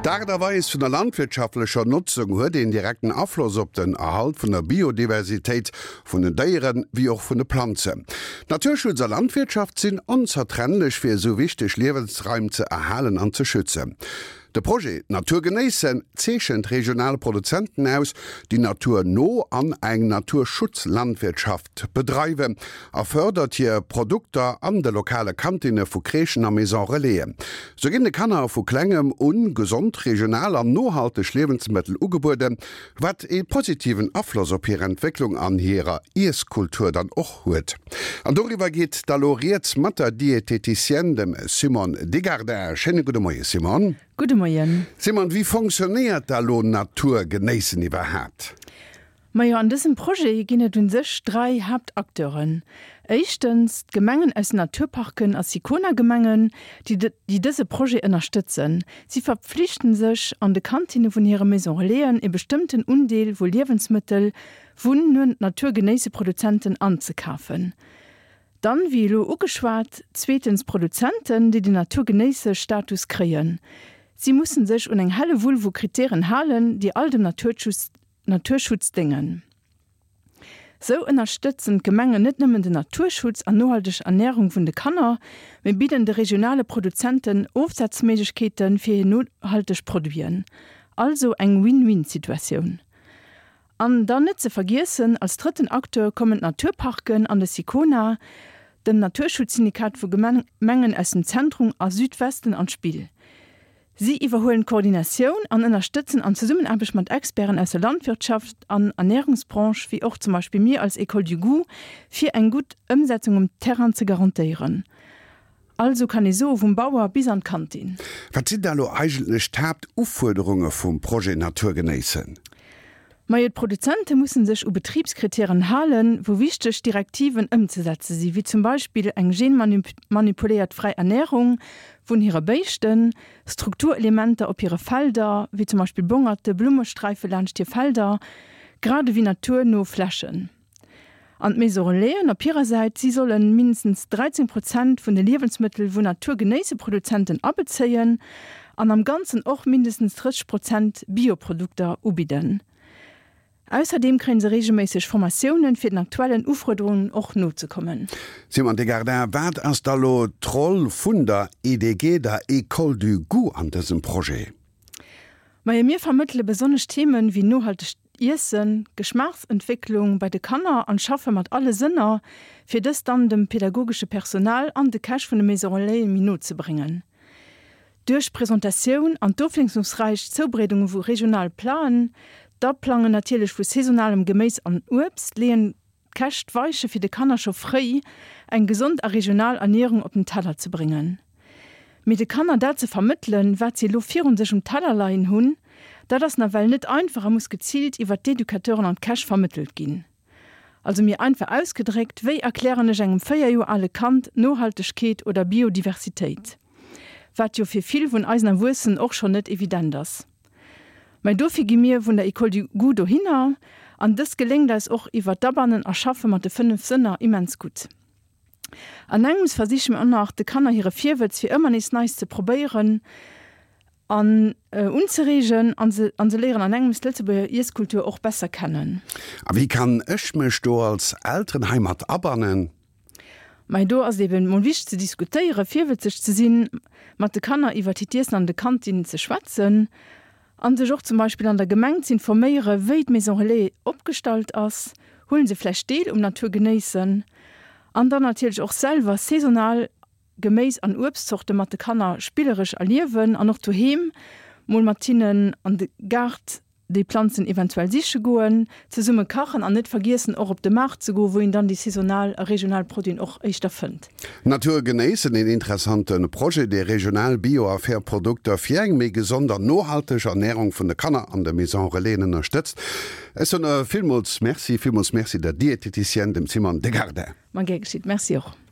D'Aart a Weis vun der landwirtschaftlecher Notzung huet een direkten Afloss op den Erhalt vun der Biodiversitéit vun den Déieren, wéi och vun de Planzen. Naturschutz a Landwirtschaft sinn onzertrennlech fir esou wichteg Liewensraim ze erhalen an ze schützen. De Projet Natur genéissen zeechent regional Produzenten aus, déi naturno an eng Naturschutzlandwirtschaft bedreiwen a fërdert hir Produkter an de lokale Kantinne vu Crèchen a Maison Relaisen. Sou ginn de Kanner vu klengem un gesond, regional an nohalteg Liewensmëttel ugebueden, wat ee positiven Afloss op hir Entwécklung an hirer Iesskultur dann och huet. An doriwwer geet da lo rieds mat der Dieteticienne, dem Simone Degardin. Schéine gudde Moie Simone. Gudde Moien. Simone, wéi fonctionnéiert da lo Natur genéissen iwwerhaapt? Majo, an dësem Projet ginn et un sech 3 Haaptacteuren. Éischtens d'Gemengen aus den Naturparken a Sicona-Gemengen, déi déi dëse Projet ënnerstëtzen. Si verpflichten sech, an de Kantinne vun hire Maison Relaisen e bestëmmten Undeel vu Liewensmëttel vun Naturgenéisseproduzenten anzekafen. Dann, wéi elo ugeschwat, zweetens d'Produzenten, déi den Naturgenéisse-Status kréien. Si mussen sech un eng Hellewull vu Kritären halen, déi all dem Naturschutz déngen. Sou ënnerstëtzen d'Gemengen net nëmmen den Naturschutz an nohalteg Ernärung vun de Kanner, mee bidden de regionale Produzenten Ofsazméiglechkeete fir hir nohalteg Produiten. Also eng Win-Win-Situatioun. An dann net ze vergiessen, als drëtten Acteur kommen d'Naturparken an de Sicona, dem Naturschutzsyndikat vu Gemengen aus dem Zentrum a Südwesten, an d'Spill. Si iwwerhuelen d'Koordinatioun an ënnerstëtzen an Zesummenaarbecht mat Experten aus der Landwirtschaft an Ernärungsbranche, wéi och zum Beispill mir als École du Goût, fir eng gutt Ëmsetzung um Terrain ze garantéieren. Also kann ee soe vum Bauer bis an d'Kantin. Wat sinn da lo eigentlech d'Haaptufuerderunge vum Projet Natur genéissen? Majo, d'Produzente mussen sech u Betribskritären halen, wou wichteg Direktiven ëmzesetze si wéi zum Beispill eng genmanipuléiert fräi Ernärung vun hire Béischten, Strukturelementer op hire Felder, wéi zum Beispill Bongerte, Blummesträife laanscht hir Felder, grad ewéi naturno Flächen. An d'Maison Relaisen op hirer Säit, si solle mindestens 13 Prozent vun de Liewensmëttel vun Naturgenéisseproduzenten abezéien an am Ganzen och mindestens 30 Prozent Bioprodukter ubidden. Ausserdeem kréie se reegelméisseg Formatiounen, fir den aktuellen Ufuerderungen och nozekommen. Simon Degardin, wat ass da lo d'Roll vun der EDG, der École du Goût, an dësem Projet? Majo, mir vermëttele besonnesch Themen wéi nohaltegt Iessen, Geschmaachsentwécklung bei de Kanner an schaffe mat alle Sënner, fir dëst dann dem pedagogesche Personal an de Käch vun de Maison Relaisen méi no ze bréngen. Duerch d'Presentatioun an d'ofwiesslungsräich Zoubreedunge vu regionale Platen, d'Aplangen natierlech vu saisonalem Geméis an Uebst, leeën d'Käch d'Weiche fir de Kanner scho fréi eng gesond a regional Ernierung op den Teller ze bréngen. Mee de Kanner dat ze vermëttelen, wat si elo virun sech um Teller leien hunn, dat ass nawell net einfach a muss geziilt iwwert d'Educateuren an d'Käch vermëttelt ginn. Also méi einfach ausgedréckt, wéi erklären ech engem 4 Joer ale Kand Nohaltegkeet oder Biodiversitéit? Wat jo fir vill vun eisen Erwuessenen och schonn net evident ass. Mä dofir gi mir vun der École du Goût dohinner an dëst geléngt eis och iwwert d'Abannen a Schaffe mat de 5 Sënner immens gutt. An engems versiche mir och nach, de Kanner hire Virwëtz fir ëmmer nees Neis ze probéieren an unzereegen an se an se léieren an engems d'Lëtzebuerger Iesskultur och besser kennen. A wéi kann ech mech do als Elteren hei mat abannen? Mei do ass et eben mol wichteg ze diskutéieren, virwëtzeg ze sinn, mat de Kanner iwwert hiert Iessen an de Kantinnen ze schwätzen An sech och zum Beispill an der Gemeng z'informéiere wéi d'Maison Relais opgestallt ass, huelen se vläicht Deel um Natur genéissen an dann natierlech och selwer saisonal Geméis an Uebstzorte mat de Kanner spilleresch erliewen an och doheem mol mat hinnen an de Gaart déi Planzen eventuell siche goen, zesumme kachen an net vergiessen och op de Maart ze goen, wou een dann déi saisonal a regional Produiten och éischter fënnt. Natur genéissen, een interessante Projet, dee regional Bio a fair Produkter fir eng méi gesond an nohalteg Ernärung vun de Kanner an de Maison Relaisen ënnerstëtzt. Ech soen villmools Merci, villmools Merci der Dieteticienne, dem Simone Degardin. Ma gär geschitt. Merci och.